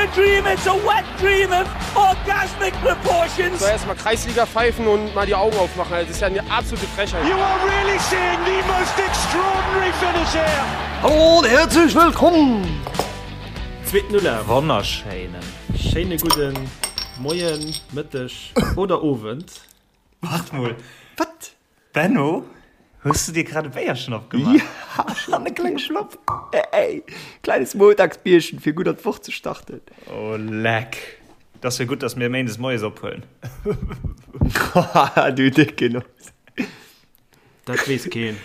a dream, it's a wet dream of orgasmic proportions. So erstmal Kreisliga pfeifen und mal die Augen aufmachen. Das ist ja eine absolute Frechheit. You are really seeing the most extraordinary finish here. Hallo und herzlich willkommen! Zweeten Ulaf. Wonnerschéinen. Schéine gudden Moien, Mëtteg oder Owend. Wart mol. Wat? Benno, hues du dir grad e Béierchen opgemaach? Ja, an e klenge Schlopp. Ey, kleines Montagsbierchen, fir gutt an d'Woch ze starten. Oh, leck. Dat ass jo gutt, dass mir méindes moies ophuelen. Haha, du décke Noss. Dat weess keen.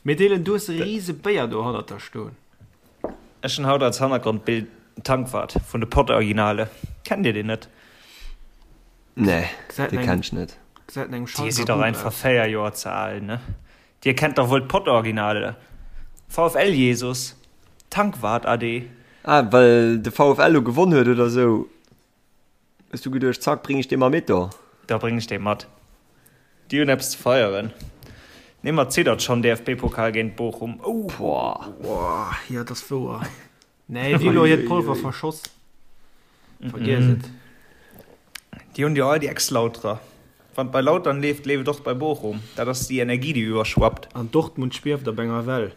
Mee Dylan, du hues e rise Béier do hannert der stoen. Ech hunn haut als Hannergrondbild Tankwart vun de Pod-Originale. Kennt dir deen net? Nee, dee kenn ech net. Dir sidd dach einfach 4 Joer ze al, ne? Dir kennt dach wuel d'Pod-Originale? VfL Jesus, Tankwart ade. Ah, well de VfL lo gewonn huet oder sou, hues du geduecht, zack, bring ech dee mar mit do? Da bring ech dee mat. Déi hunn eppes ze feieren. Nee, ma ziddert schonn, DFB-Pokal géint Bochum, ouh. Boah, jo, dat ass wouer. Nee, déi hu lo hiert Polver verschoss. Vergiess et. Déi hunn jo all déi Ex-Lauterer. Wann et bei Lautern leeft, leeft et och bei Bochum. Dat ass déi Energie, déi iwwerschwappt. An Dortmund schwieft op enger Well.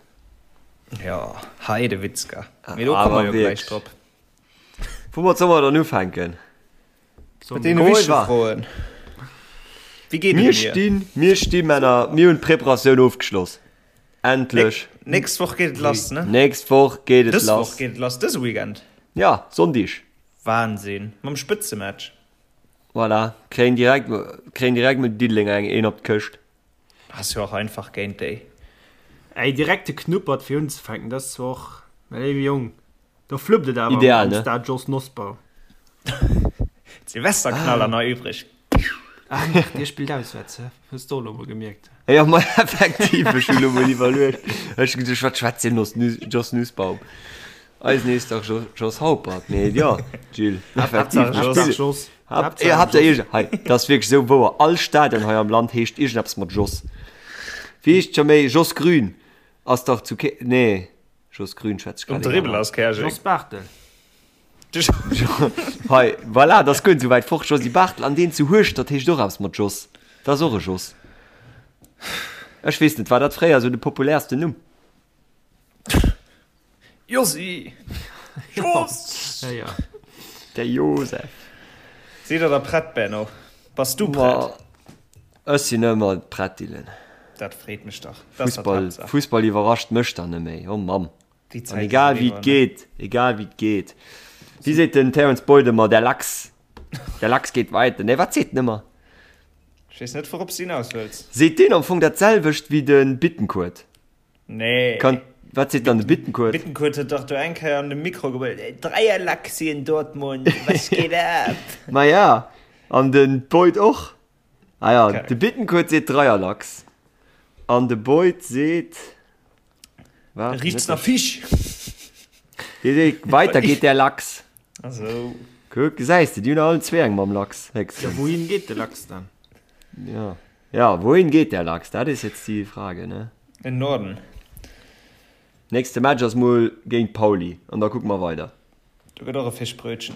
Jo, Heidewitzka. Mee do komme mer jo gläich drop. Woumat solle mer dann ufänken? Mat deene wichtege Froen. Wéi geet et mir? Stinn, mir sti Männer, mir hunn d'Preparatioun ofgeschloss. Endlech. Nächst Woch geet et lass, ne? Nächst Woch geet et lass. Dës Woch geet et lass, dëse Weekend. Ja, Sonndig. Wahnsinn, mam Spëtzematch. Voilà, kréien direkt, kréien direkt mol Diddelenger eng een op d'Këscht. Ass jo och einfach géint déi. Ey, direkt de Knuppert fir unzefänken, dat ass zwar och, mä léiwe Jong, do fluppt et awer Ideal, am ne? Stade Jos Nosbaum. D'Silvesterknaller nach übrig. Ah, merde, dir spillt auswärts, hä? Hues de och elo mol gemierkt? Jo, ma effektiv, ech hunn elo mol iwwerluecht. Ech hu geduecht, wat schwätzt deen Jos Nussbaum? Eisen heescht dach Jos Haupert. Mee jo, Gilles, effektiv. Haaptsaach Jos. Haaptsaach Jos. Hei, dat ass wierklech esou wouer. All Stadion hei am Land heescht iergendeppes mat Jos. Wéi heescht scho méi? Jos Grün ass dach zu Ke-, nee, Jos Grün schwätz ech Um grad een Dribbel aner. ass Käerjeng. Jos Barthel. Hei, voilà, dat ass guer net esou wäit fort. Josy Barthel an deen zu Hueschtert heescht och eppes mat Jos. Dat ass och e Jos. Ech weess net, war dat fréier esou de populärsten Numm? Josy! Jos! Ja, ja. Der Josef. Sidd der da prett, Benno? Bass du prett? Ma ech sinn ëmmer prett, Dylan. Dat freet mech dach. Dat ass Fussball, d'Haaptsaach. Fussball iwwerrascht mech dann net méi. Oh Mamm. Déi An Zäit ass egal wéi eriwwer, et ne? geet, egal wéi et geet. Wéi seet den Terence Boyd ëmmer, der Lachs, der Lachs geht weiter. Nee, wat seet en ëmmer? Ech weess net, wourops du hinaus wëlls. Seet deen am Fong dat selwecht wéi de Bittencourt? Nee. Kann, wat seet dann de Bittencourt? Bittencourt huet dach do eng Kéier an de Mikro gebrüllt, Dreierlachs hier in Dortmund, was geht ab? Ma ja, an de Boyd och. Ah ja, Okay. de Bittencourt seet Dreierlachs an de Boyd seet, wat? Riecht's nach Fisch? Dee seet, weiter geht der Lachs. Also. Kuck, gesäis de, déi hunn allen zwee eng mam Lachs, Ja, héchstens. wouhin geet de Lachs dann? Ja. Ja, wohin geht der Lachs? Dat is jetzt die Frage, ne? In Norden. Nächste Match ass mol géint Pauli an da kucke mer weider. Do gëtt och e Fischbrötchen.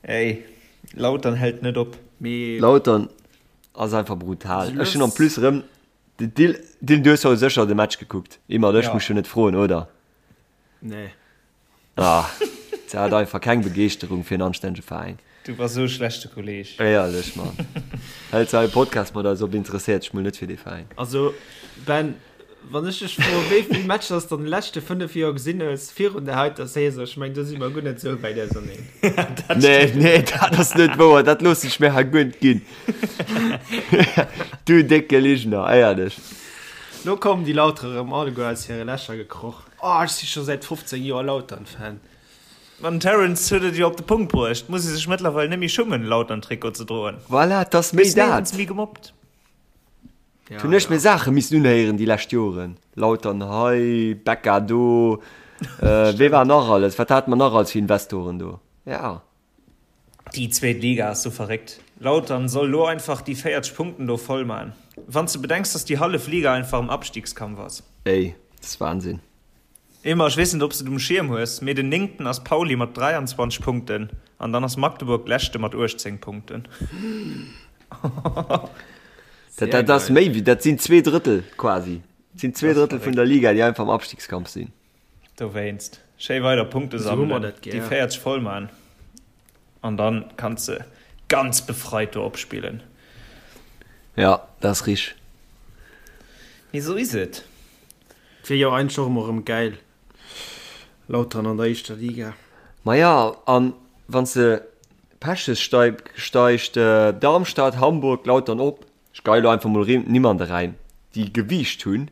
Ey, Lautern hält net op. Mee Lautern ass einfach brutal. Ech hunn en plus erëm de Dil, Dil, du hues jo sécher de Match gekuckt. Immert, ech Ja. muss jo net froen, oder? Nee. Ah, se hat einfach keng Begeeschterung fir en anstännege Veräin. Du bass esou e schlechte Kolleg. Éierlech, Mann. Hält se hei e Podcast mat eis op, interesséiert sech mol net fir dee Veräin. Also, Ben, wann ech dech froen, wéi vill Matcher s de an de leschte 5 Joer gesinn hues virun der heiter Saison, ech mengen, do si mer guer net esou wäit auserneen. Nee, nee, dat ass net wouer. Dat loossen ech mir hei guer net ginn. Du décke Ligner, éierlech. Lo kommen déi Lauterer erëm alleguer aus hire Lächer gekroch. Oh, ech si scho säit 15 Joer Lautern-Fan. Ma den Terence huet et jo op de Punkt bruecht, muss ee sech mëttlerweil net méi schummen, Lautern-Trikot ze droen. Voilà, et ass méi Gëss néierens dat. méi gemobbt. Ja, Hunn ech ja. mir Saache missen unhéieren déi lescht Joren. Lautern hei, Becca do, wee war nach alles, wat hate mer nach alles fir Investoren do? Ja. Déi zweet Liga ass sou verréckt. Lautern soll lo einfach déi 40 Punkten do voll man. Wanns de bedenks dass déi hallef Liga einfach am Abstiegskampf ass. Ey, dat ass Wahnsinn. Emma, ech weess net, ob s de et um Schierm hues, mee den Néngten ass Pauli mat 23 Punkten an dann ass Magdeburg Leschte mat 18 Punkten. Dat, dat ass méi wéi, dat sinn 2 Drëttel quasi. Dat sinn 2 Drëttel vun der Liga, déi einfach am Abstiegskampf sinn. Dowéinst, schéi weider Punkte Esou hu mer sammelen, dat déi gär. 40 voll man an dann kanns de ganz befreit do opspillen. Ja, dat ass richteg. Mee esou is et. Wier jo eigentlech och emol erëm gäil, Lautern an der éischter Liga. Maja, an wann s de Pech hues, steigt Darmstadt, Hamburg, Lautern op. Ech geie lo einfach mol Nimm an de Räim, déi Gewiicht hunn.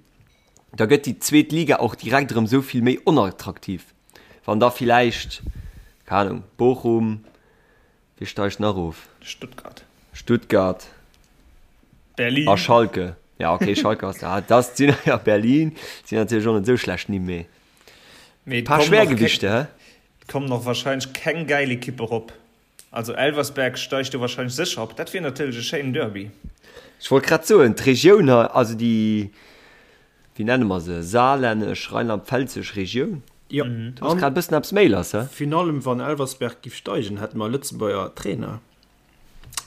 Da gëtt déi zweet Liga och direkt erëm esou vill méi onattraktiv. Wann da villäicht, keng Ahnung, Bochum, Wie steigt nach of? Stuttgart. Stuttgart. Berlin. A Schalke. Ja, okay, Schalke ass da. Das sinn ja Berlin sinn natierlech och net esou schlecht Nimm, mee Mee paar Schwergewichte, hä? Et kommen och wahrscheinlech keng gäil Ekippe rop. Also Elversberg steigt do wahrscheinlech sécher op. Dat wier natierlech e schéinen Derby. Ech wollt grad soen, d'Regioun hei, also déi wéi nenne mer se, saarlännesch, rheinland-pfälzesch Regioun. Jo, Do ass grad e bëssen eppes méi lass, he? Virun allem wann Elversberg giff steigen, hätte mer e Lëtzebuerger Trainer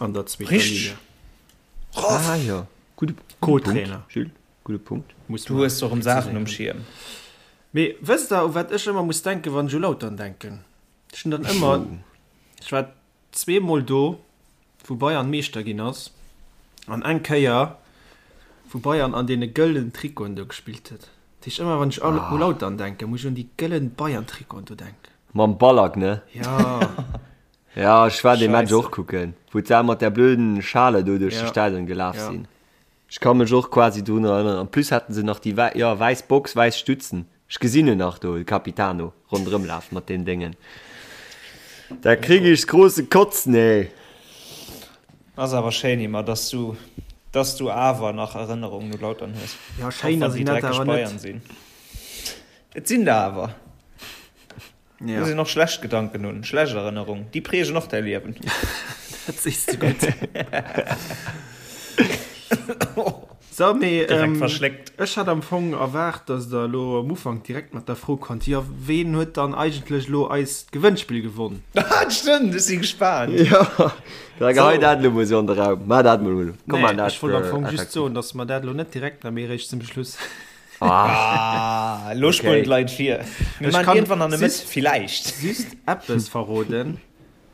an der zweeter Richteg. Liga. Ah jo, gudde Punkt, Co-Trainer. Jules, gudde Punkt. Muss Du mer hues och erëm Saachen um preziséieren. Schierm. Mee wësst der, u wat ech ëmmer muss denken, wann ech u Lautern denken? Ech hunn dann ëmmer, ech war zweemol do, wou Bayern Meeschter ginn ass, an eng Kéier, wou Bayern an deene gëllen Trikoten do gespillt huet. Dat heescht, ëmmer wann ech u Lautern denken, muss ech un déi gëllen Bayern-Trikoten do denken. Mam Ballack, ne? Jo. Ja, ech war dee Match Scheisse. och kucken, wou d'Sa mat där blöden Schale do duerch de Ja. Stadion gelaf Ja. sinn. Ech ka mech och quasi drun erënneren. En plus haten se nach déi wäi, jo, wäiss Box, wäiss Stutzen. Ech gesinn en nach do, de Capitano, ronderëm lafen mat deem Déngen. Da krieg ech große Kotzen, ey! Ass awer schéin Emma, dass du, dass du awer nach Erënnerungen u Lautern hues. Ja, Och schéin wann ass déi en dat dreckeg awer net. Bayern sinn. Et sinn der awer. Ja. Muss een och schlecht Gedanken hunn, schlecht Erënnerungen, déi prägen och däi Liewen. Dat sees de gutt. So, mee Direkt ähm, verschléckt. ech hat am Fong erwaart, dass der elo am Ufank direkt mat der Fro kommt, jo, ween huet dann eigentlech elo eist Gewënnspill gewonn? Ah, stimmt, ech si gespaant. Jo, da gehei So. dat elo mol sou an de Raum. Maach dat mol elo. Komm, Nee, maach dat ech wollt am Fong just effektiv. soen, dass mer dat elo net direkt maachen, mee eréischt zum Schluss. Ah, elo spulen d'Leit vir. Mir Ech maachen kann iergendwann an der Mëtt, just- villäicht. Just eppes verroden,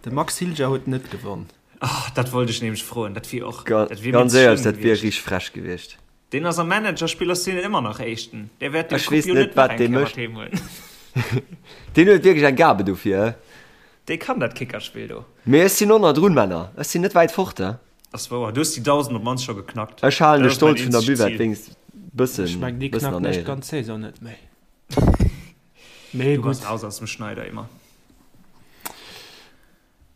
De Max Hilger huet net gewonn. Ah, dat wollt ech nämlech froen. Dat wier och, Ga dat wier mir ganz ze éierlech, schlëmm dat wier gewiescht. richteg frech gewiescht. Deen ass am Managerspill ass deen ëmmer nach Éischten. Dee wäert den Ech Coupe weess jo net, net nach wat eng dee Kéier mat mécht. heem huelen. Deen huet wierklech eng Gabe dofir, he? Dee kann dat Kickerspill do. Mee ech sinn och nach drun, Männer. Ech sinn net wäit fort, he? Ass wouer, du hues déi 1000 op mannst scho geknackt. Ech halen de Dat ass mäin Stolz vun der eenzegt Buvette Zil. wéinst bëssen, Ech mengen, déi bëssen knacken an ech Éieren. d'ganz Saison net méi. Mee Du bass gutt. raus aus dem Schneider, Emma.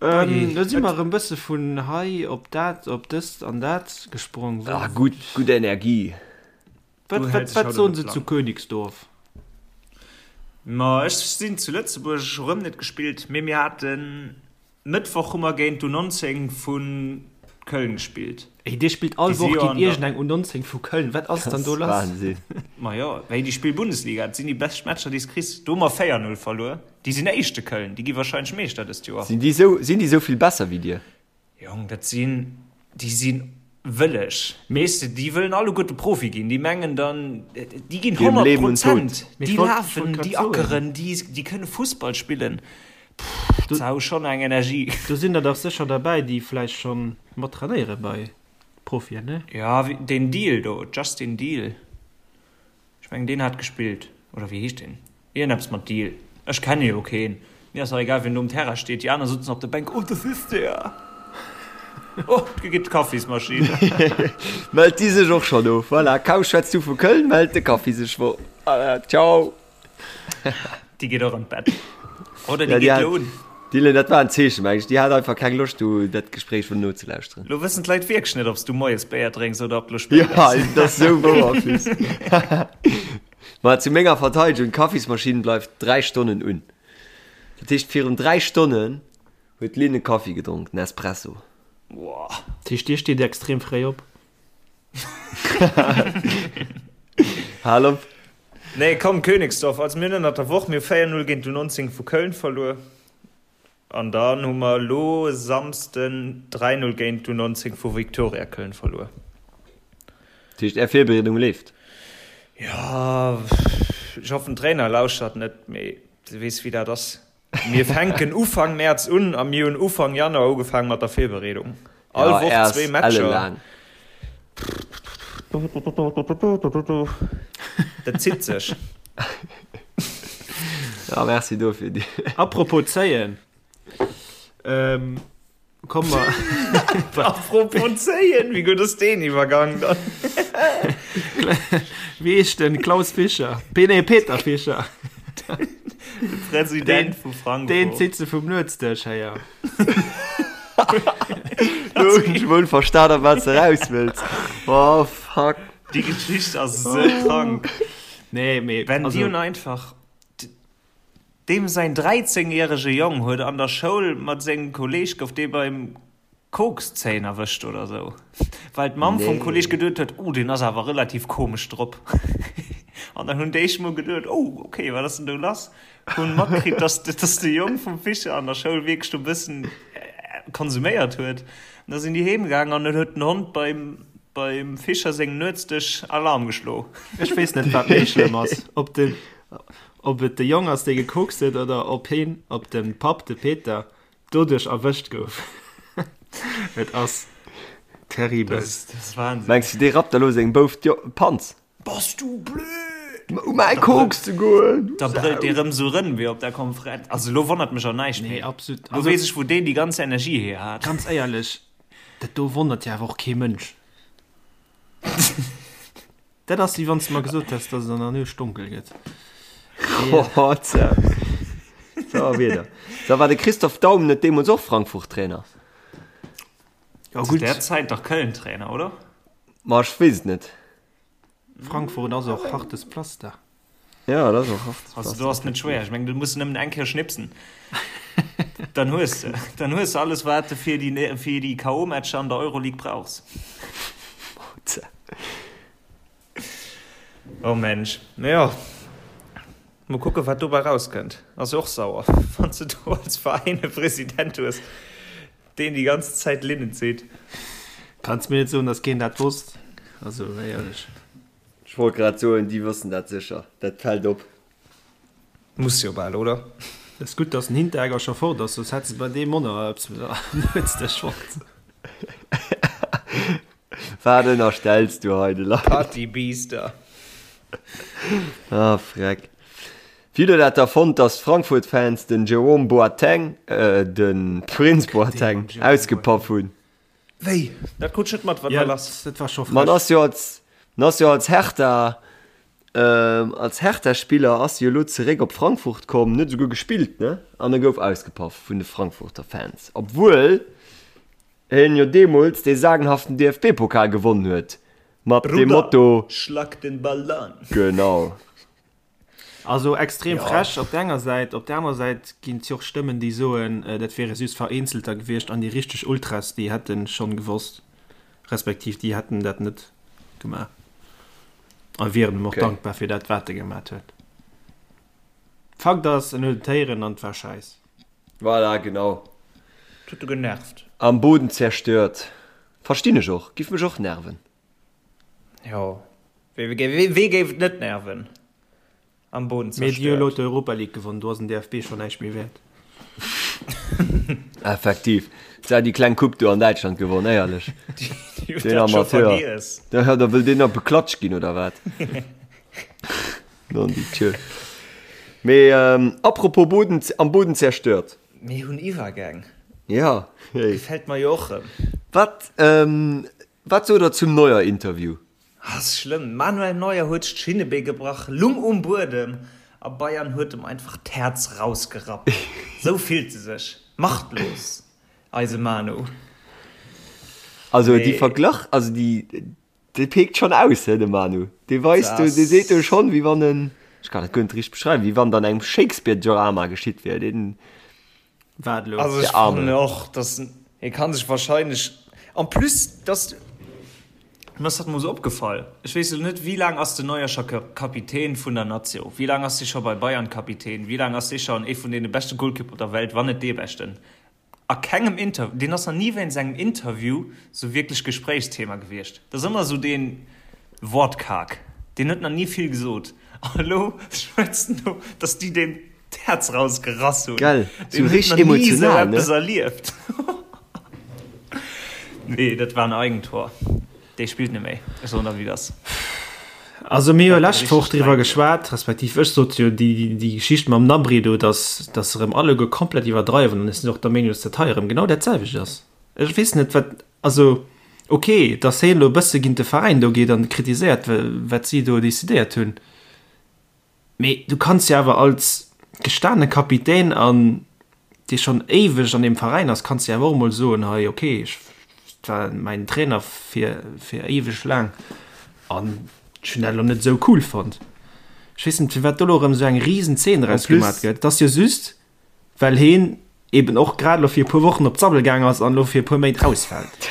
Ähm, do si mer erëm bësse vun hei op dat, op dëst an dat gesprong. Ah, gutt, gutt Energie. Wat, Du wat, häls dech wat haut soen op se de zu Plan. Königsdorf? Ma ech sinn zu Lëtzebuerg, ech hu rëm net gespillt, mee mir haten Mëttwoch hu mer géint d'U19 vu Köln gespillt. Ey, dir spillt all Déi si Woch jo géint an der. iergendeng U19 vu Köln. Wat ass dann do lass? Wahnsinn. Ma jo, wéi déi spille Bundesliga. Dat sinn déi bescht Matcher, déi s kriss. Do hu mer 4, 0 verluer. Déi sinn Éischte, Köln. Déi gi warscheinlech Meeschter dëst Joer. Sinn déi sou, sinn déi sou vill besser wéi dir? Jong, dat sinn, déi si wëlleg. Weess de, déi wëllen alleguerte Profi ginn. Déi mengen dann, déi ginn Ginn 100 Leben und Tod. Prozent. Mee ech Déi wollt, ech wollt lafen, grad déi soen. ackeren, déi, déi kënne Fussball spillen. Pff, Do, dat hu schonn eng Energie. do sinn der dach sécher derbäi, déi vläicht schonn mat trainéiere bei Profien, ne? Ja, deen Deal do, Justin Deal, ech mengen deen hat gespillt, oder wéi heescht deen? Iergendeppes mat Deal. Ech kenne jo keen. Mir ass dach egal wien do um Terrain steet. Déi aner sutzen op der Bänk, oh das ist der! Oh, do geet d'Kaffismaschinn. Mellt déi sech och schonn of? Voilà, kaum schwätz du vu Köln, mellt de Kaffi sech wor. Ciao! Déi geet och an d'Bett. Oder Ja, déi déi geet hat, lo un. Dylan, dat war en Zeechen, meng ech. Déi hat einfach keng Loscht, do dat Gespréich wëllen nozelauschteren. Lo wëssen d'Leit wierklech net, ob s du moies Béier drénks oder ob lo spéit Ja, ass. dat ass sou wouer, en plus. Ma zu menger Verteidegung, d'Kaffismaschinn bleift 3 Stonnen un. Dat heescht, virun 3 Stonnen huet d'Lynn e Kaffi gedronk, den Espresso. Boah. Dat heescht, dir steet extrem fréi op? Hal op. Nee, komm, Königsdorf. Also mir hunn ënnert der Woch, mir hu 4, 0 géint d'U19 vu Köln verluer. An dann hu mer elo e Samsden 3, 0 géint d'U19 vu Viktoria Köln verluer. Dat heescht, Är Virbereedung leeft? Jo, ech hoffen, den Trainer lauschtert net, mee du weess, wéi dat ass. Mir fänken Ufank Mäerz un a mir hunn Ufank Januar ugefaangen mat der Virbereedung. All Woch zwee Matcher. Dat zitt sech. Ja, merci dofir. Apropos zéien. Ähm, komm mer. Apropos zéien, wéi gutt ass deen Iwwergang dann? Wéi heescht den Klaus Fischer? Nee, Peter Fischer. De President vu Frankfurt. Deen zitt se vum Nuetsdësch héier. Lo hunn ech wuel verstan, op wat s de raus wëlls. Oh, fuck. Déi Geschicht ass esou krank. Nee, mee. Wenn déi hunn einfach. Deem säin 13 järege Jong huet an der Schoul mat sengem Kolleeg gouf dee beim Kokszéien erwëscht oder sou, well d'Mamm vum Kolleeg geduet huet, oh deen ass awer relativ komesch drop. An dann hunn déi mol geduet, oh ok, wat ass denn do lass? Hunn matkritt, dass dass de Jong vum Fischer an der Schoul wierklech do bëssen konsuméiert huet. An da sinn déi heem gaangen an dann huet den Hond beim beim Fischer sengem Nuetsdësch Alarm geschlo. Ech weess net wat méi schlëmm ass, ob de ob et de Jong ass dee gekokst huet oder ob heen, ob de Papp, de Peter, doduerch erwëscht gouf. Et ass terribel. Dat ass Wahnsinn. Mengs du dee rappt elo sengem Bouf d'Panz? Bass du blöd? U mäi Koks ze goen, du Da brëllt dee Sau! rëm sou rëm wéi op der Konferenz. Also elo wonnert mech och näischt Nee, méi. absolut. Elo Also weess ech wou deen déi ganz Energie hier hat. ganz éierlech, dat do wonnert jo awer och kee Mënsch. Dat ass wéi wann s de mer gesot häss, dass et an der Nuecht donkel gëtt. Oh, tja. So, wieder. So, war de Christoph Daum net deemools och Frankfurt-Trainer? Ja, Zu gutt. där Zäit dach Köln-Trainer, oder? Ma ech weess et net. Frankfurt ass och hartes Pflaster. Ja, dat ass och hartes Also do ass net schwéier. Ech mengen, du muss nëmmen eng Kéier schnipsen. Dann hues de. Dann hues de alles, wat de fir déi, fir déi K.O.-Matcher an der Euroleague brauchs. Oh Mensch. Mee jo, mol kucken, wat dobäi rauskënnt. Ass jo och sauer, wann s de do als Veräin e President hues, deen déi ganz Zäit Linnen zitt. Kanns mir net soen, dass keen dat wosst. Also éierlech. Ech wollt grad soen, déi wëssen dat sécher. Dat fält op. Muss jo bal, oder? Et ass gutt, dass den Hinteregger scho fort ass, soss hätt se bei deem Monner eppes Nuetsdësch fonnt. Wat ënnerstells du hei de Leit? Partybiester. Ah, freck. Wéi hutt der dat da fonnt, dass d'Frankfurt-Fans den Jerome Boateng, äh, de Prinz Boateng, ausgepaff hunn? Wéi? Dat krut ech net mat, wat war lass? Dat war scho Ma en frech. ass jo als, en ass jo als Hertha, ähm, als Hertha-Spiller ass jo elo zeréck op Frankfurt komm, en huet esouguer gespillt, ne? An e gouf ausgepaff vun de Frankfurter Fans, obwuel hien jo deemools dee sagenhaften DFB-Pokal gewonnen huet mat dem Bruder, Motto, schlag den Ball an! Genau. Also extrem frech op der enger Säit, op der anerer Säit ginn et jo och Stëmmen, déi soen, dat wiere just Vereenzelter gewiescht an déi richteg Ultras, déi hätte schonn gewosst, respektiv déi hätten dat net gemaach a wieren em och dankbar fir dat, wat e gemat huet. Fakt ass, en huet et héieren an et war schäiss. Voilà, genau. Et huet e genervt. Am Boden zerstört. Verstinn ech och, giff mech och nerven. Jo, wee géif et net nerven? Am Boden Mee déi hu elo zerstört. d'Europa League gewonnen, do ass den DFB schonn näischt méi wäert. Effektiv. Se hat déi kleng Coupe do an Däitschland gewonn, éierlech. Déi huet Deen dat scho Amateur. vergiess. Da da wëll deen nach beklatscht ginn, oder wat? Non, déi Tür. Mee ähm, apropos Boden, am Boden zerstört. Mir hunn Iwwergäng. Ja, hey. Gefält mer jo och rëm. Wat, ähm, Wat sot der zum Neuer-Interview? Ass schlëmm, Manuel Neuer huet sech d'Schinnebee gebrach, lung um Buedem a Bayern huet em einfach d'Häerz rausgerappt. Sou fillt e sech, machtlos, eise Manu. Also déi Verglach, also déi, dee peekt schonn aus, he, de Manu. Dee weist do, dee seet do schonn, wéi wann en, ech kann dat guer net richteg beschreiwen, wéi wann et an engem Shakespeare-Drama geschitt wier. Deen. Wat elo? Also ech fannen och, dass hie kann sech wahrscheinlech, en plus dass. Mir ass dat mol sou opgefall. Ech weess elo net, wéi laang ass den Neuer scho Kapitän vun der Nazio? Wéi laang ass dee scho bei Bayern Kapitän? Wéi laang ass dee schonn ee vun deene beschte Golkipper der Welt, wann net dee beschten? A kengem Inter, deen ass nach ni wéinst engem Interview sou wierklech Gespréichsthema gewiescht. Dat ass ëmmer sou dee Wortkarg. Deen huet nach ni vill gesot. An elo schwätzt en do, datt déi deem d'Häerz rausgerass hunn. Gell, sou Deen huet richteg nach ni sou emotional, ne? eppes erlieft. Nee, dat war en Eigentor. Dee spillt net méi. Ech soen der, wéi et ass. Also mir hu Dat lescht Woch richteg driwwer Eigentor. geschwat, respektiv ech sot jo déi, déi Geschicht mam Gnabry do, dass, dass se erëm alleguer komplett iwwerdreiwen an ech sinn och der Meenung, dass dat hei erëm genau dat selwecht ass. Ech weess net, wat, also ok, dass hien elo e bësse géint de Veräin do geet an kritiséiert, wat si do decidéiert hunn, Mee du kanns jo awer als gestane Kapitän an dee schonn éiweg an deem Veräin ass, kanns de awer och emol soen, hei ok, ech war mäin Trainer fir fir éiweg laang an ech hunn dat elo net esou cool fonnt. Ech weess net firwat do elo erëm esou eng risen Zeen En draus gemaat plus, gëtt. Et ass jo just well heen eben och grad elo fir e puer Wochen op d'Sabbel gaang ass an elo fir e puer Méint ausfält.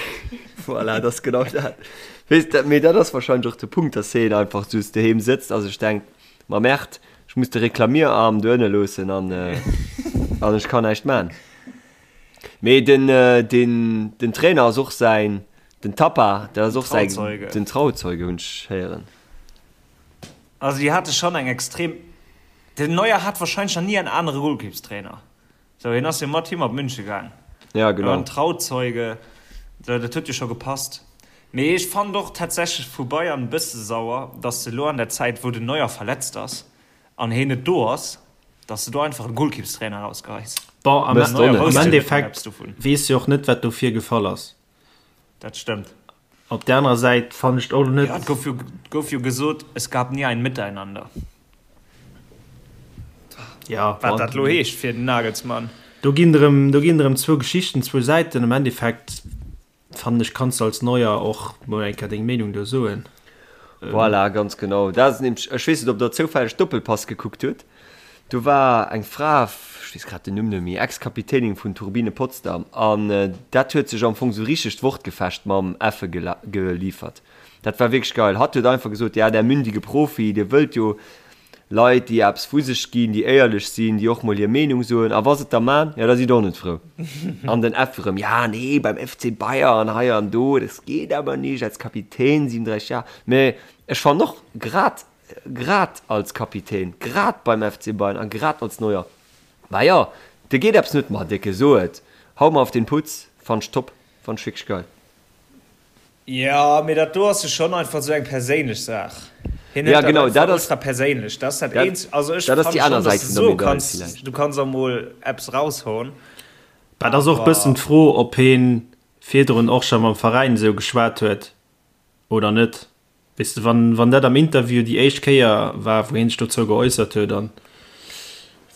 Voilà, dat ass genau dat. Weess de, mee dat ass wahrscheinlech och de Punkt, dass heen einfach just doheem sëtzt a sech denkt, Ma Merde, ech muss de Reklamierarm do ënne loossen an an ech kann näischt man. Mee den, den, den Trainer ass och säin, den Tappa, dat ass och säi, Trauzeuge. den Trauzeuge hunn ech héieren. Also déi hate schonn eng extrem, den Neuer hat wahrscheinlech nach ni en anere Golkippstrainer. Sou, hien ass jo mat him op München gaang. Ja, genau. En Trauzeuge, sou, dat huet jo scho gepasst. Mee ech fannen och tatsächlech vu Bayern e bësse sauer, dass se elo an der Zäit, wou den Neuer verletzt ass an heen net do ass, dass de do einfach e Golkippstrainer rausgeheis. Bon, am Mësst och net. am Endeffekt weess jo och net, wat do virgefall ass. Dat stëmmt. Op der anerer Säit fannen ech et och net. Ja, et gouf jo, gouf jo gesot, es gab nie ein Miteinander. Ja, Wat dat lo heescht fir den Nagelsmann. Do ginn erëm, do ginn erëm zwou Geschichten, zwou Säiten. Am Endeffekt fannen ech, kanns de als Neuer och mol eng Kéier deng Meenung do soen. Voilà, ganz genau. Dat ass nämlech, ech weess net, ob Der zoufälleg Doppelpass gekuckt hutt. Do war eng Fra, ech weess grad den Numm net méi, Ex-Kapitänin vun Turbine Potsdam, an dat huet sech am Fong sou richteg d'Wortgefecht mam Effe geliefert. Dat war wierklech geil. Hatt huet einfach gesot, ja, der mündige Profi, dir wëllt jo Leit, déi eppes vu sech ginn, déi éierlech sinn, déi och mol hir Meenung soen, a wa se et da man, ja, da sidd der och net frou. An den Effe rëm, ja, nee, beim FC Bayern, hei an do, das geht aber nicht, als Kapitän, 37 Jahre. Mä ech fannen och, grad Grad als Kapitän, grad beim FC Bayern a grad als Neuer. Bah jo, dir geet eppes net, ma Décke, so et, hau mer auf den Putz, fannt ech top, fannt ech wierklech geil. Jo, mee dat do ass jo schonn einfach esou eng perséinlech Saach. Hien Ja, hëlt dat genau, einfach dat ass, ultra perséinlech. Dat ass dat dat, Eenzegt. Also ech dat ass fanne déi aner schonn, dass Säit de vun der soe Medail kanns, villäicht. du kanns och mol eppes raushauen, Bah, et ass och e bëssen awer. d'Fro, ob hien virdrun och scho mam Veräin esou geschwat huet oder net. Weess de, wann, wann dat am Interview déi éischt Kéier war, wou hien sech dozou geäussert huet an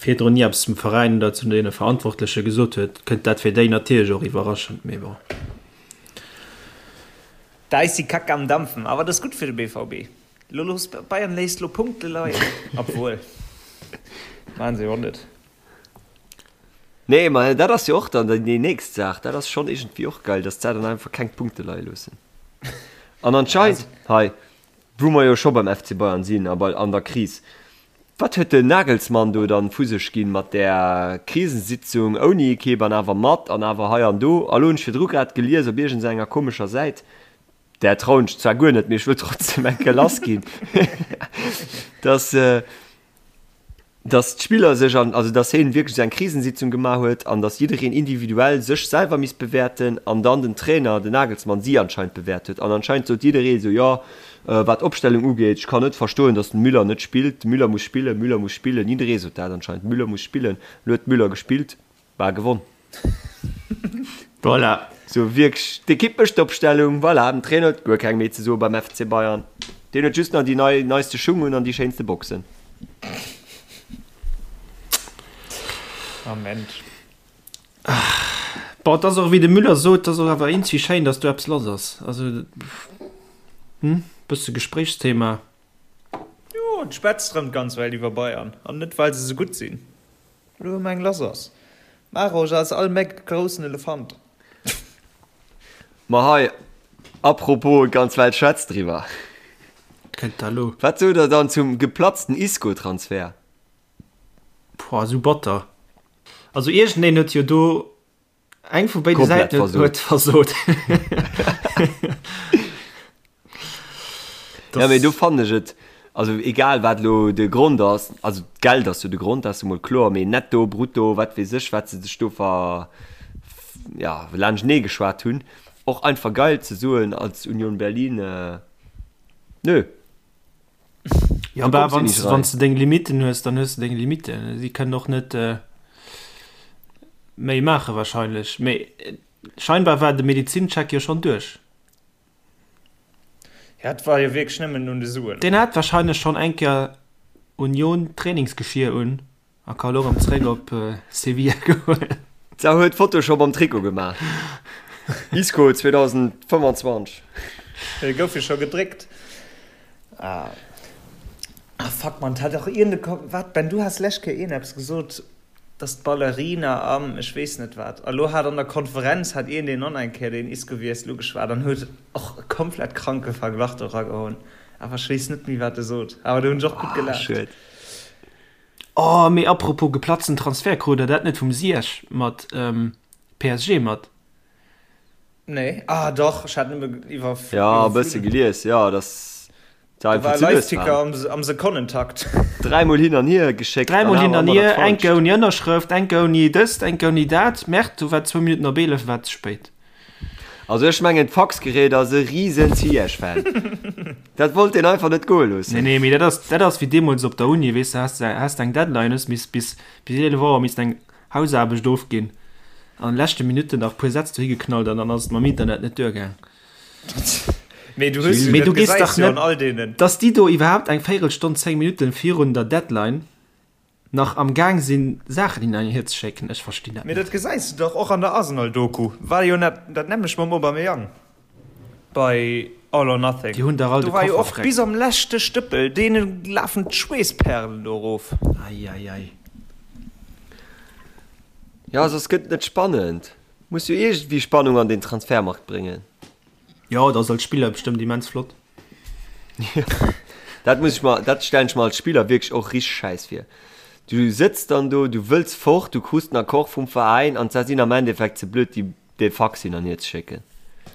virdrun ni eppes zum Veräin oder zu deene Verantwortleche gesot huet, kënnt dat fir déi natierlech och iwwerraschend, mee bon. Da ist die Kacke am Dampfen. Awer dat ass gutt fir de BVB. Lo looss Bayern léisst lo Punkte leien. Obwuel, maachen se jo och net. Nee, ma dat ass jo och dann déi nächst Saach. Dat ass schonn iergendwéi och geil, dass d'Sä dann einfach keng Punkte leie loossen. An anscheinend, hei, wou mer jo scho beim FC Bayern sinn a bei an der Kris, wat huet den Nagelsmann do dann vu sech ginn mat där Krisensitzung ouni Ekipp an awer mat an awer hei an do? A lo hunn ech virdru grad gelies op iergendenger komescher Säit, där trauen ech zwar guer net, mee ech wëll trotzdem eng Kéier lassginn, dass, dass d'Spiller sech an, also dass hien wierklech esou eng Krisensitzung gemaach huet an dass jiddereen individuell sech selwer misst bewäerten an dann den Trainer, den Nagelsmann, si anscheinend bewäert huet. An anscheinend sot jidderee esou, jo, wat d'Opstellung ugeet, ech kann net verstoen, dass den Müller net spillt, de Müller muss spillen, Müller muss spillen, jidderee sot dat anscheinend, Müller muss spillen. Elo huet Müller gespillt. War gewonn. Voilà. Sou wierklech, d'Ekipp mécht d'Opstellung, voilà, den Trainer huet guer keng méi ze soe beim FC Bayern. Deen huet just nach déi nei, neiste Schung un an déi schéinste Boxen. Amen. Bon, et ass och, wéi de Müller sot, et ass och awer eenzi schéin, datt do eppes lass ass. Also, hm, bësse Gespréichsthema. Jo, et schwätzt rëm d'ganz Welt iwwer Bayern, an net well se sou gutt sinn. Lo hu mer eng lass ass. Marosch ass all Méck groussen Elefant. Ma hei. Apropos, d'ganz Welt schwätzt driwwer. Kënnt da lo. Wat sot der dann zum geplatzten Isco-Transfer? Boah, sou batter. Also iergendeen huet jo do eng vu béide Komplett Säiten huet versot. versot. Ja, mee do fannen ech et, also egal wat elo de Grond ass, also d'Geld ass jo de Grond, dat ass jo mol kloer, mee netto, brutto, wat weess ech, wat se sech do ver, ja, laanschtenee geschwat hunn, och einfach geil ze soen als Union Berlin, nö. Ja, bah, wann wann du deng Limiten hues, dann hues du deng Limiten. Si kënnen och net äh, méi maache wahrscheinlech. Mee äh, scheinbar war de Medizincheck jo schonn duerch. Ja, et war jo wierklech nëmmen un de Suen. Deen hat wahrscheinlech schonn eng Kéier Union Trainingsgeschier un. A ka lo rem zréck op Sevilla goen. D'Sau huet Photoshop am Trikot gemaach. Isco 2025. Dee gouf jo scho gedréckt. Ah fuck man, hat och iergend e Wat Ben, du has lescht Kéier iergendeppes gesot, dass d'Ballerina am ech weess net wat. A lo hat an der Konferenz hat iergendeen och nach eng Kéier deen Isco wiessel ugeschwat an huet och e komplett kranke Verglach do eragehoen. Awer ech weess net méi wat e sot. Awer do hunn ech och gutt Ah gelaacht. schued. Oh, mee apropos geplatzten Transfer, krut der dat net vum Ziyech mat PSG mat? Nee, ah dach, ech hat nëmme iwwer. Ja, e bësse gelies, jo, dass se Da einfach war ze lues Live-Ticker waren. am, am Sekonnentakt. Dräimol hin an hier geschéckt an Dräimol awer hin an ëmmer dat hier, eng Falscht. ouni Ënnerschrëft, eng ouni dëst, eng ouni dat. Merde, do war zwou Minutten op 11, war ze spéit. Also ech mengen d'Faxgerät ass e riesen Ziyech-Fan. Dat wollt deen einfach net goe Nee, loossen. nee, mee dat ass, dat ass wéi deemools op der Uni, weess de, has de, has de eng Deadline, hues miss bis, bis 11 Auer misst eng Hausaarbecht ofginn, an leschte Minutten nach puer Sätz dohi geknallt an dann ass et mam Internet net duergaang. Mee du hues jo, Mee dat du gees gesäis dach jo an net, all deenen. dass déi do iwwerhaapt eng Véirelstonn, 10 Minutten virun der Deadline nach am Gaang sinn Saachen hin an hier ze schécken, ech verstinn dat Mee net. dat gesäis du dach och an der Arsenal-Doku, war jo net dat nämmlecht mam Aubameyang bei All or Nothing. Déi hunn dach all Do de war jo Koffer och freck. bis am leschte Stëppel, deene lafen d'Schweessperlen do erof. Ei ei ei. Jo, soss gëtt et net spannend. Muss jo iergendwéi Spannung an den Transfermarkt bréngen. Jo, dat ass als Spiller bestëmmt immens flott. Dat muss ech mer, dat stellen ech mer als Spiller wierklech och richteg schäiss vir. Du sëtz dann do, du wëlls fort, du krus den Accord vum Veräin an se sinn am Endeffekt ze blöd déi dee Fax hin an hier ze schécken.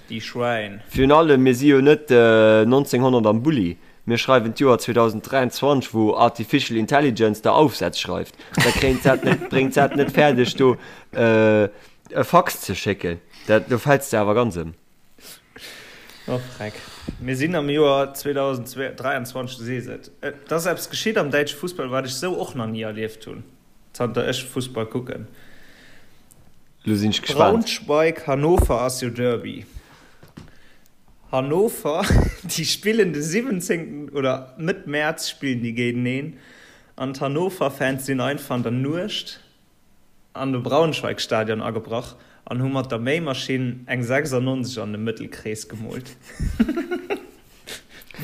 Déi Schwäin. Virun allem, mir si jo net 1900 am Bulli, mir schreiwen d'Joer 2023, wou Artificial Intelligence der Aufsätz schreift. Da kréint se net, bréngt se et net fäerdeg do e Fax ze schécken. Dat, do fäls de awer ganz ëm. Oh freck. Mir sinn am Joer 2023, du sees et. Et ass eppes geschitt am däitsche Fussball, wat ech sou och nach ni erlieft hunn, zanter ech Fussball kucken. Lo sinn ech gespaant. Braunschweig-Hannover ass jo Derby. Hannover, déi spillen de 17. oder Mëtt Mäerz spillen déi géinteneen an d'Hannover-Fans sinn einfach an der Nuecht an de Braunschweig-Stadion agebrach an hu mat der Méimaschinn eng 96 an de Mëttelkrees gemoolt.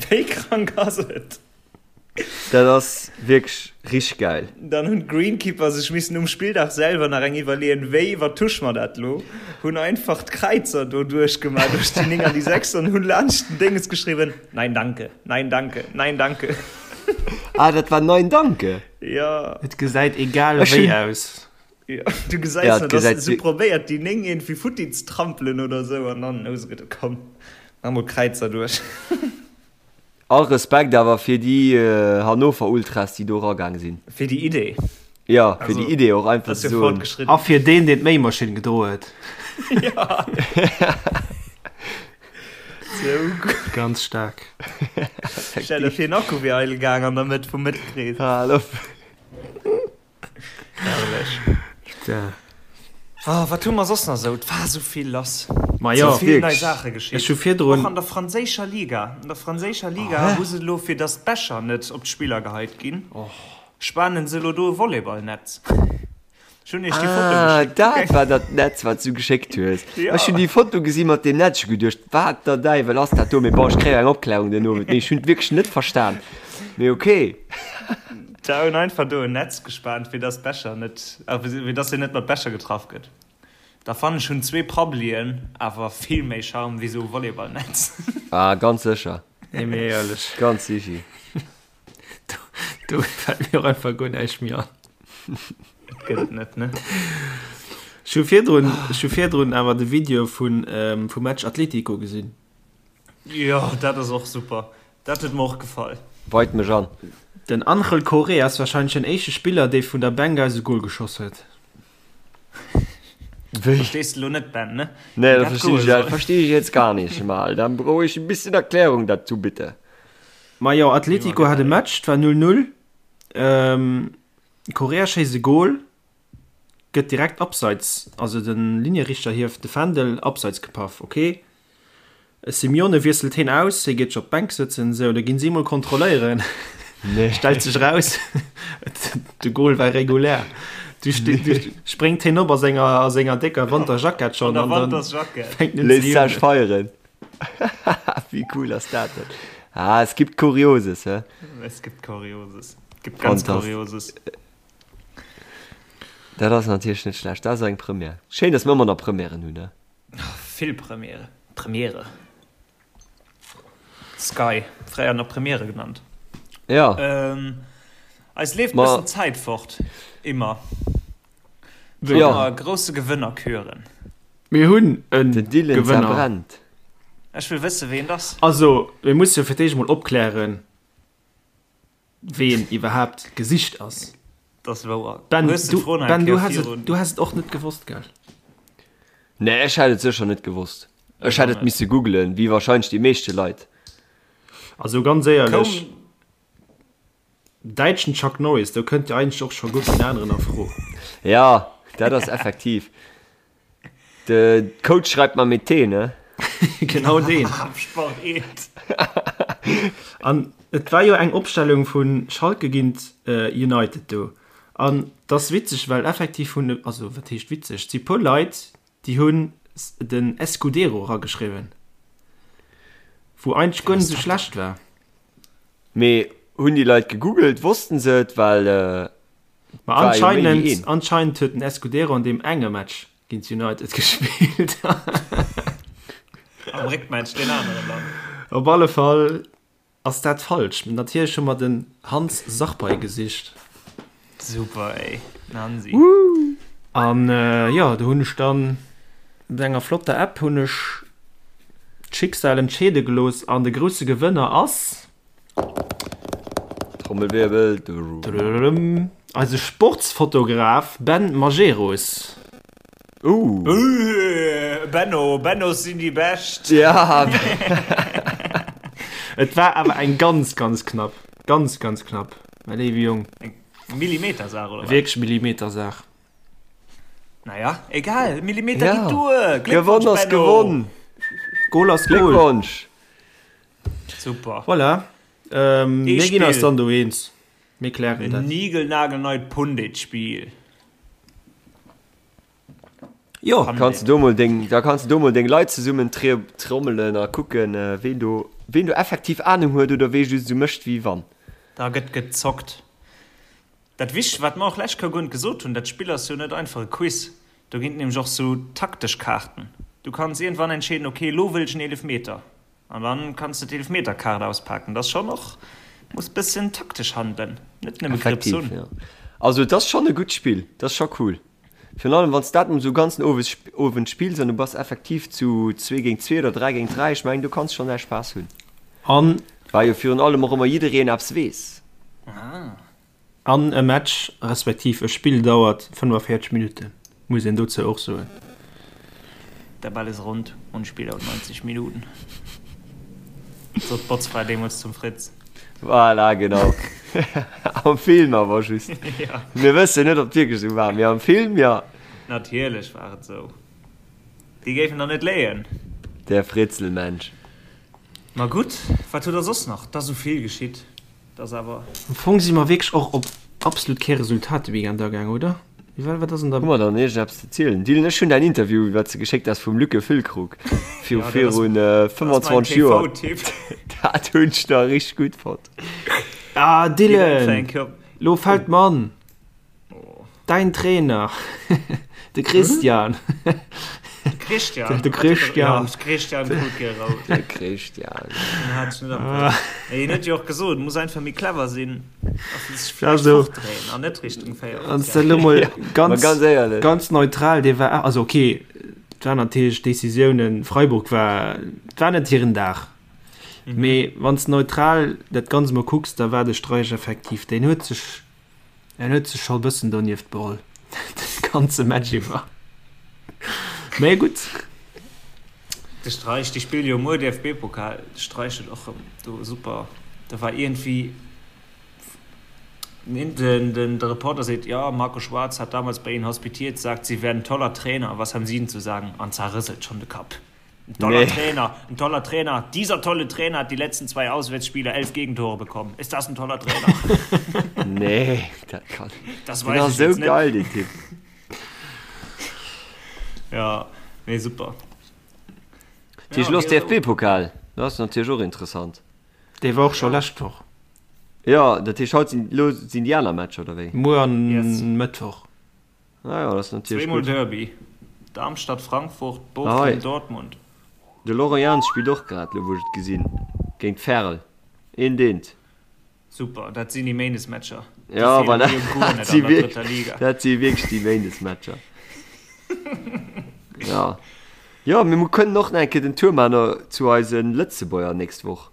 Wéi krank ass et? Dat ass wierklech richteg gäil. Dann hunn d'Greenkeeper sech missen um Spilldag selwer nach eng iwwerleeën, wéi iwwertusche mer dat lo? Hunn einfach d'Kräizer do duerchgemaach, duerch déi 9 an déi 6 an hunn laanscht den Dénges geschriwwen, Nein danke, nein danke, nein danke. Ah, dat war Nein danke? Ja. Et gesäit egal Ech wéi hunn. aus. Ja, du gesäis Ja, nach, et dass gesäit se probéiert déi 9 iergendwéi futti ze trampelen oder esou an dann hu se geduet, komm, mach mol Kräizer duerch. All Respekt awer fir déi Hannover Ultras déi do eragaang sinn. Fir déi Idee. Jo, fir déi Idee och einfach ze soen. Fortgeschritten. A fir deen deen d'Méimaschinn gedroe huet. Ja. Sou gutt. Ganz staark. Stell der fir en Akku wier eidel gaang an der Mëtt vum Mëttelkrees. Hal op. Herrlech. Putain. Ah, wat hu mer soss nach esou? Et war esou vill lass. Ma jo, Esou vill nei wierklech. Saache geschitt. Ech hu virdrun. Och an der franséischer Liga. An der franséischer Liga hu se elo, fir datt d'Becher net op d'Spiller geheit ginn, spanen se elo do e Volleyballnetz. Ech hunn iech déi Foto Ah, geschéckt. dat war dat Netz, wat s du geschéckt hues. Ja. Ech hunn déi Foto gesi mat deem Netz, ech hu geduecht, wat der Däiwel ass dat do? Mee bon, ech kréie eng Opklärung den Owend. Mee ech hunn et wierklech net verstan. Mee okay. Da hunn einfach do en Netz gespaant, fir dass d'Becher net, fir dass een net mat Becher getraff gëtt. Da fannen ech hunn zwee Prabbelien awer vill méi Charme wéi sou e Volleyballnetz. Ah, ganz sécher. Nee, mee éierlech. Ganz sichi. Do, do fält mir och einfach guer näischt méi an. Et gëtt et net, ne? Ech hu virdrun, ech hu virdrun awer de Video vun, vum Match Atletico gesinn. Jo, dat ass och super. Dat huet mer och gefall. Weit mech an. Den Angel Correa ass wahrscheinlech den éischte Spiller, dee vun der Bänk aus e Gol geschoss huet. Wéi? Verstees de lo net, Ben, ne? Nee, Wéi dat dat verstehe goe ich, dat soll. verstehe ich jetzt gar nicht mal. Dann brauch ich ein bisschen Erklärung dazu, bitte. Ma jo, Atletico hat e Match, et war 0, 0. Correa schéisst e Gol, gëtt direkt abseits, also de Linierichter hieft de Fändel, abseits gepaff, ok. Simeone wiesselt heen aus, hie geet scho op d'Bänk sëtzen, sou, da ginn si mol kontrolléieren. Nee. Stellt sech raus, de Goal war regulär. Du, ste, du spréngt heen op a senger, a senger décker Wanterjackett schonn An der an dann Wantersjackett. fänkt en un ze Léisst sech jubelen. feieren. Wéi cool ass dat denn? Ah, es gibt Kurioses, hä? Es gibt Kurioses. Es gibt ganz Fantastisch. Kurioses. Dat ass natierlech net schlecht. Dat ass eng Première. Schéin, dass mir ëmmer nach Premièren hunn, hä? Vill Premiere. Premiere. Sky, fréier nach Premiere genannt. Ja. Ähm, eis leeft Ma bëssen Zäit fort. Immer. Wéi? Ja. Ëmmer grousse Gewënner küren. Mir hunn en Den Dylan Gewënner. zerbrennt. Ech wëll wësse ween et ass. Also, mir musse jo fir d'éischt mol opklären, ween iwwerhaapt gesicht ass. Dat ass wouer. Ben, Hues de du, d'Fro nach eng Ben, du Kéier häss et, virun? du häss et och net gewosst, gell? Nee, ech hätt et sécher net gewosst. Ech Ech hätt och et net. misse googlen, wéi wahrscheinlech déi meeschte Leit. Also ganz éierlech, Koum. däitschen Chuck Norris, do kënnt jo eigentlech och scho guer keen aneren a Fro. Ja, dat ass effektiv. De Coach schreibt man mit T, ne? Genau deen. Sport 1. An et war jo eng Opstellung vu Schalke géint United do. An et ass witzeg, well effektiv hunn, also wat heescht witzeg, et si puer Leit, déi hunn den Escudero erageschriwwen, wou eigentlech guer net esou schlecht war. Mee hunn déi Leit gegoogelt? Wossten se et? Well Ma war jo méi wéi anscheinend, een. anscheinend huet den Escudero an deem enge Match géint United gespillt. Am Réckmatch deen aneren dann. Op alle Fall ass dat falsch. Natierlech hu mer den Hans Sarpei gesicht. Super ey, den Hansi. An jo, do hunn ech dann mat enger flotter App hunn ech d'Schicksal entscheede gelooss an de grousse Gewënner ass. Trommelwirbel. Eise Sportsfotograf Ben Majerus. Uh. Benno, Bennos sinn déi Bescht. Ja. Et war awer eng ganz, ganz knapp. Ganz, ganz knapp, mäi léiwe Jong. Eng Millimetersaach, oder wat? Wierklech Millimetersaach. Naja, egal, Millimeter Ja. geet duer. Gewonn Gléckwonsch, ass Benno. gewonn. Goal ass Goal. Gléckwonsch. Super. Voilà. Ähm, Ee mir ginn eis Spill. dann do eens. Mir klären En dat. nigelnagelneit Pundit-Spiel. Jo. Kanns du do mol deng, da kanns du do mol deng Leit zesummen trommelen a kucken, ween do, ween do effektiv Ahnung huet oder wee just esou mécht wéi wann. Da gëtt gezockt. Dat Wichtegst, wat mer och lescht Kéier guer net gesot hunn, dat Spill ass jo net einfach e Quiz. Do ginn et nämlech och sou taktesch Kaarten. Du kanns iergendwann entscheeden, ok, elo wëll ech en Eelefmeter. An dann kanns de d'Eelfmeterkaart auspaken. Dat ass schonn och, muss bëssen taktesch handelen, net nëmme Grips Effektiv, hunn. jo. Also et ass schonn e gutt Spill, dat ass scho cool. Virun allem wann s dat esou ganzen Owes, Owend spills an du bass effektiv zu zwee géint zwee oder dräi géint dräi, ech mengen do kanns schonn däi Spaass hunn. An. Well jo virun allem och ëmmer jiddereen eppes weess. An e Match, respektiv e Spill dauert 45 Minutten, muss een dozou och soen. Der Ball ist rund und Spiel dauert 90 Minuten, sot d'Botzfra deemools zum Fritz. Voilà, genau. Am Film awer just. Ja. Mir wëssen net, ob et wierklech esou war, mee am Film, jo. Natierlech war et esou. Déi géifen der net léien. Der Fritzelmensch. Ma gutt, wat huet der soss nach? 't ass esou vill geschitt. Dat ass awer. Am Fong si mer wierklech och op absolut kee Resultat de Weekend agaang, oder? Wéi war, wat ass an der. Hu mer dann iergendeppes ze zielen? Dylan, ech hunn däin Interview, wat s de geschéckt has vum Luc Füllkrug viru virun 25 Joer, dat hunn ech nach richteg gutt fonnt. Ah Dylan, lo fält mer an, däin Trainer. De Christian. De Christian. De Christian. Ja, de Christian krut gär rout. De Christian. Den hat ech net am Griff. Mee hien huet jo och gesot, muss einfach méi clever sinn a sech Ja, vläicht so. fortdréien an net Richtung 4 Wann s de elo mol Ma ganz, ganz éierlech. ganz neutral, dee war, also okay, et waren natierlech Decisiounen, Freiburg war, et war net hiren Dag. Mee wann s de neutral dat Ganzt mol kucks, da war de Streich effektiv, deen huet sech, En huet sech scho bëssen donieft beholl de ganze Match iwwer. Mee gutt. De Streich, déi spille jo muer DFB-Pokal. De Streich huet och rëm do super, do war iergendwéi den, den, de Reporter seet, ja, Marco Schwarz hat damals bei Ihnen hospitiert, sagt, Sie wären toller Trainer, was haben Sie denn zu sagen? An zerrëselt schonn de Kapp. Ein toller Nee. Trainer, ein toller Trainer. Dieser tolle Trainer hat die letzten zwei Auswärtsspiele 11 Gegentore bekommen. Ist das ein toller Trainer? Nee, dat kann. Das Den weiß ass ich sou jetzt net. geil, deen Typ. Ja, nee, super. Tisch Ja, los okay, DFB-Pokal. Dat ass natierlech och interessant. Dee war och scho lescht Woch. Ja, dat heescht haut sinn, lo sinn déi aner Matcher, oder wéi? Muer an Yes. Mëttwoch. Ah ja, dat ass natierlech Zweemol gutt. Derby, Darmstadt, Frankfurt, Ah, Bochum, hei. Dortmund. De Laurent Jans spillt och grad, lo wou ech et gesinn, géint Verl. Eent eent. Super, dat sinn déi Méindesmatcher. Déi Ja, feelen voilà. mir jo guer Dat net si an der wierk, drëtter Liga. dat si wierklech déi Méindesmatcher. Ja. Jo, mee mir kënnen och nach eng Kéier den Tour maachen zu eise Lëtzebuerger nächst Woch.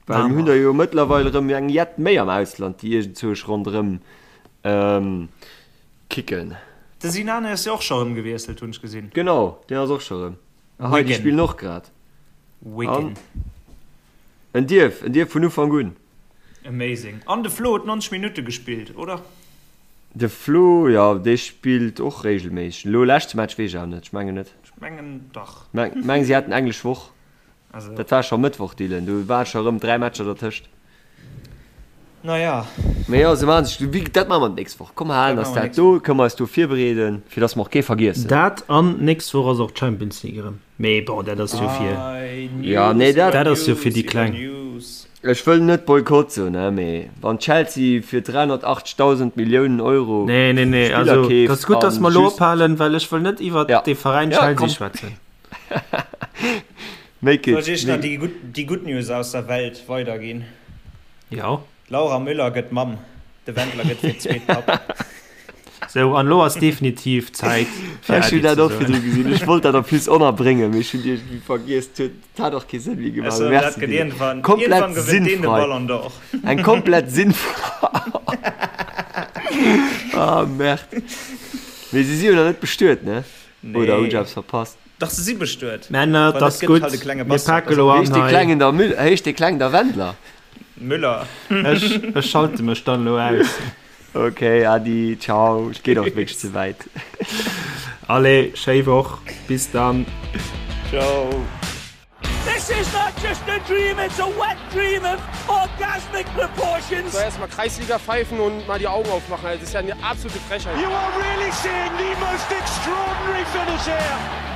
Well mir hunn der jo mëttlerweil erëm eng jett méi am Ausland, déi iergendzwousch ronderëm kicken. De Sinani ass jo och scho rëm gewiesselt, hunn ech gesinn. Genau, deen ass och scho rëm. A hei, déi Wigan. spillen och grad. Wigan. An en dierf, en dierf vun Ufank un. Amazing. An de Flo huet 90 Minutte gespillt, oder? De Flo, jo, dee spillt och regelméisseg. Elo leschte Match weess ech awer net, ech mengen net. Ech mengen dach. Meng si haten englesch Woch. Also. Dat war scho Mëttwoch, Dylan. Do waren scho rëm 3 Matcher dertëscht. Naja. Mee jo, se maachen sech, wéi, dat maache mer d'nächst Woch. Komm, halen eis dat do, kënne mer eis do virbereeden, fir dass mer och kee vergiessen. Dat an d'nächst Woch ass och d'Champions League erëm. Mee bon, dat ass jo fir. Ja, nee, dat. Dat ass jo fir déi Kleng. Ech wëll net Boykott soen, ne, mee wann Chelsea fir 380.000 Milliounen Euro Nee, nee, nee, Spiller also, keeft dat ass gutt, dass an mer elo just. ophalen, well ech wëll net iwwert Ja. dee Veräin Ja, Chelsea komm. schwätzen. Make Soll it. ech iech nach déi gutt, déi gutt News aus der Welt weiderginn? Jo. D'Laura Müller gëtt Mamm, de Wendler gëtt fir d'zweet Papp. Sou, an elo ass definitiv Zäit fir Ech hunn Äddi dat ze och soen. virdru gesinn. Ech wollt dat en plus ënnerbréngen, mee ech hunn iergendwéi vergiess. Et huet, et hat och kee Sënn méi gemaach. Also, dat Merci, gëtt Dylan. iergendwann, Komplett iergendwann gewënnt deen de sinnfrei. Ballon d'Or. Eng komplett sinnfrei. Ah, Merde. Mee si si jo nach net bestuet, ne? Oder hunn ech Nee. eppes verpasst? Dach, se si bestuet. Männer, Well et ass et gëtt gutt, halt e klenge mir Bastard. pake lo an Heescht dee hei. Klengen da Müll, heescht dee Kleng da Wendler? Müller. Ech, ech schalte mech dann elo aus. Ok, Adi, ciao. Et geet och wierklech ze wäit. Allez, schéi Woch, bis dann. Ciao. This is not just a dream, it's a wet dream of orgasmic proportions. So erstmal Kreisliga pfeifen und mal die Augen aufmachen. Also, das ist ja eine absolute Frechheit. You are really seeing the most extraordinary finish here.